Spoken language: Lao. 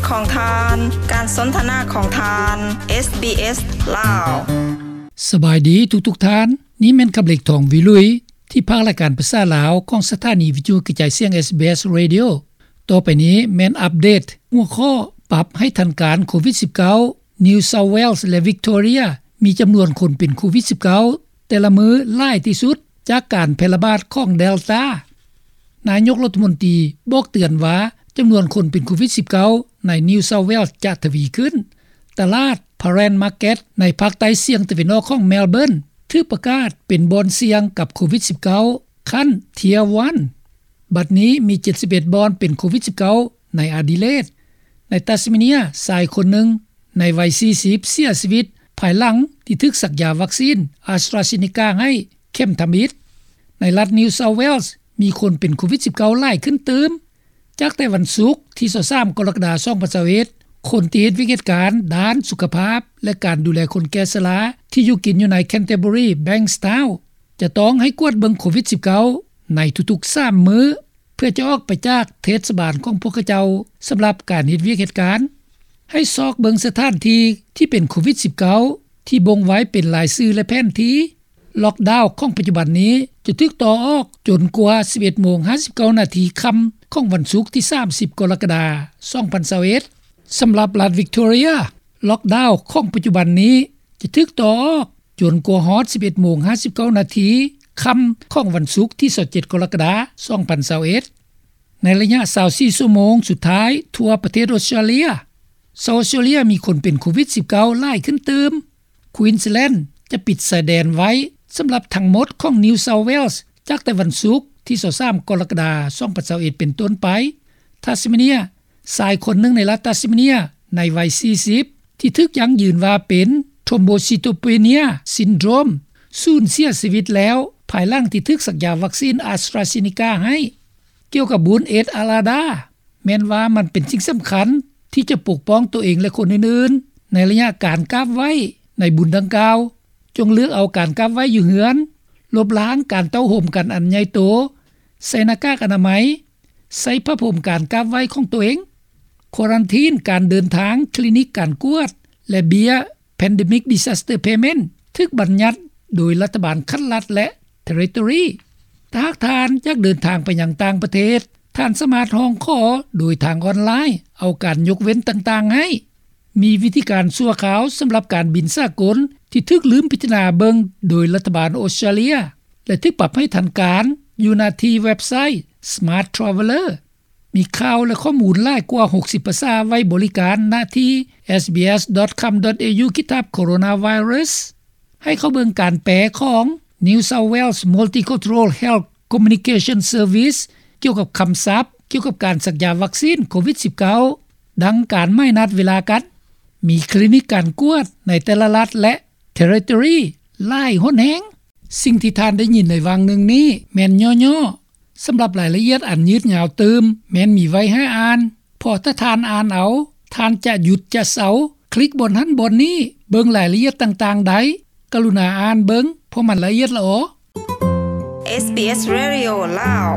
ຂອງທ່ານ, ການສົນທະນາຂອງທ່ານ ເອສບີເອສ ລາວ. ສະບາຍດີທຸກໆທ່ານ, ນີ້ແມ່ນຄຳເລັກ ທອງວິລຸຍ ທີ່ພາກລາຍການພາສາລາວຂອງສະຖານີວິທະຍຸກະຈາຍສຽງ ເອສບີເອສ Radio. ຕໍ່ໄປນີ້ແມ່ນອັບເດດຫົວຂໍ້ ປັບໃຫ້ທັນການໂຄວິດສິບເກົ້າ New South Wales ແລະ Victoria ມີຈຳນວນຄົນເປັນໂຄວິດສິບເກົ້າ ແຕ່ລະມື້ຫຼາຍທີ່ສຸດຈາກການແຜ່ລະບາດຂອງ Delta. ນາຍົກລັດຖະມົນຕີບອກເຕືອນວ່າ ຈຳນວນຄົນເປັນໂຄວິດສິບເກົ້າ ໃນ New South Wales ຈະທະວີຂຶ້ນ. ຕະຫຼາດ Prahran Market ໃນພາກໃຕ້ສຽງຕາເວັນອອກຂອງ Melbourne ຖືກປະກາດເປັນບ່ອນສ່ຽງກັບໂຄວິດສິບເກົ້າ ຂັ້ນ Tier one. ບັດນີ້ມີເຈັດສິບເອັດບ່ອນເປັນໂຄວິດສິບເກົ້າ ໃນ Adelaide. ໃນ Tasmania ຊາຍຄົນໜຶ່ງໃນໄວສີ່ສິບ ເສຍຊີວິດ ພາຍຫຼັງທີ່ຖືກສັກຢາວັກຊີນ AstraZeneca ໃຫ້ເຂັມທຳອິດ. ໃນລັດ New South Wales ມີຄົນເປັນໂຄວິດສິບເກົ້າຫຼາຍຂຶ້ນຕື່ມ. ຈາກແຕ່ວັນສຸກທີຊາວສາມ ກໍລະກະດາ ສອງພັນຊາວເອັດ ຄົນທີ່ເຮັດວຽກເຮັດການດ້ານສຸຂະພາບ ແລະ ການດູແລຄົນແກ່ຊະລາ ທີ່ຢູ່ກິນຢູ່ໃນ Canterbury Bankstown ຈະຕ້ອງໃຫ້ກວດເບິ່ງໂຄວິດສິບເກົ້າ ໃນທຸກໆສາມມື້ ເພື່ອຈະອອກໄປຈາກເທດສະບານຂອງພວກເຂົາເຈົ້າ ສຳລັບການເຮັດວຽກເຮັດການ. ໃຫ້ຊອກເບິ່ງສະຖານທີ່ທີ່ເປັນໂຄວິດສິບເກົ້າ ທີ່ບົ່ງໄວ້ເປັນລາຍຊື່ ແລະ ແຜນທີ່. ລັອກດາວຂອງປັດຈຸບັນນີ້ຈະຖືກຕໍ່ອອກຈົນກວ່າສິບເອັດໂມງຫ້າສິບເກົ້ານາທີຄ່ຳຂອງວັນສຸກທີສາມສິບ ກໍລະກະດາ ສອງພັນຊາວເອັດ. ສຳລັບລັດ Victoria, ລັອກດາວຂອງປັດຈຸບັນນີ້ຈະຖືກຕໍ່ອອກຈົນກວ່າຮອດສິບເອັດໂມງຫ້າສິບເກົ້ານາທີຄ່ຳຂອງວັນສຸກທີຊາວເຈັດ ກໍລະກະດາ ສອງພັນຊາວເອັດ. ໃນໄລຍະຊາວສີ່ຊົ່ວໂມງສຸດທ້າຍທົ່ວປະເທດອົດສະຕຣາເລຍ, ຊາວອົດສະຕຣາເລຍມີຄົນເປັນໂຄວິດສິບເກົ້າຫຼາຍຂຶ້ນຕື່ມ. Queensland ຈະປິດຊາຍແດນໄວ້ສຳລັບທັງໝົດຂອງ New South Wales ຈາກແຕ່ວັນສຸກທີຊາວສາມ ກໍລະກະດາ ສອງພັນຊາວເອັດ ເປັນຕົ້ນໄປ. Tasmania, ຊາຍຄົນໜຶ່ງໃນລັດ Tasmania ໃນໄວສີ່ສິບ ທີ່ຖືກຢັ້ງຢືນວ່າເປັນ Thrombocytopenia Syndrome ສູນເສຍຊີວິດແລ້ວ ພາຍຫຼັງທີ່ຖືກສັກຢາວັກຊີນ AstraZeneca ໃຫ້. ກ່ຽວກັບບຸນ Id al-Adha, ແມ່ນວ່າມັນເປັນສິ່ງສຳຄັນທີ່ຈະປົກປ້ອງຕົວເອງ ແລະ ຄົນອື່ນໆ ໃນໄລຍະການກາບໄຫວ້ໃນບຸນດັ່ງກ່າວ. ຈົ່ງເລືອກເອົາການກາບໄຫວ້ຢູ່ເຮືອນ, ລົບລ້າງການເຕົ້າໂຮມກັນອັນໃຫຍ່ໂຕ, ໃສ່ໜ້າກາກອະນາໄມ, ໃສ່ຜ້າພົມການກາບໄຫວ້ຂອງຕົວເອງ, ຄວາຣັນທີນການເດີນທາງ, ຄລີນິກການກວດ ແລະ ເບ້ຍ Pandemic Disaster Payment ຖືກບັນຍັດໂດຍລັດຖະບານຂັ້ນລັດ ແລະ Territory. ຖ້າຫາກທ່ານຢາກເດີນທາງໄປຍັງຕ່າງປະເທດ, ທ່ານສາມາດຮ້ອງຂໍໂດຍທາງອອນລາຍເອົາການຍົກເວັ້ນຕ່າງໆໃຫ້. ມີວິທີການຊົ່ວຄາວສຳລັບການບິນສາກົນທີ່ຖືກລືມພິຈາລະນາເບິ່ງໂດຍລັດຖະບານອົດສະຕຣາເລຍ ແລະ ຖືກປັບໃຫ້ທັນການຢູ່ໜ້າທີ່ເວັບໄຊ Smart Traveller. ມີຂ່າວ ແລະ ຂໍ້ມູນຫຼາຍກວ່າຫົກສິບພາສາໄວ້ບໍລິການນະທີ່ sbs.com.au/coronavirus. ໃຫ້ເຂົ້າເບິ່ງການແປຂອງ New South Wales Multicultural Health Communication Service ກ່ຽວກັບຄຳສັບກ່ຽວກັບການສັກຢາວັກຊີນໂຄວິດສິບເກົ້າ ດັ່ງການໝາຍນັດເວລາກັນ. ມີຄລີນິກການກວດໃນແຕ່ລະລັດ ແລະ Territory ຫຼາຍຫົນແຮງ. ສິ່ງທີ່ທ່ານໄດ້ຍິນໃນຫວ່າງໜຶ່ງນີ້ແມ່ນຫຍໍ້ໆ. ສຳລັບລາຍລະອຽດອັນຍືດຍາວຕື່ມ ແມ່ນມີໄວ້ໃຫ້ອ່ານ, ເພາະຖ້າທ່ານອ່ານເອົາ, ທ່ານຈະຢຸດຈະເຊົາ, ຄລິກບ່ອນຫັ້ນບ່ອນນີ້, ເບິ່ງລາຍລະອຽດຕ່າງໆໄດ້. ກະລຸນາອ່ານເບິ່ງ, ເພາະມັນລະອຽດຫຼະອໍ. SBS Radio ລາວ.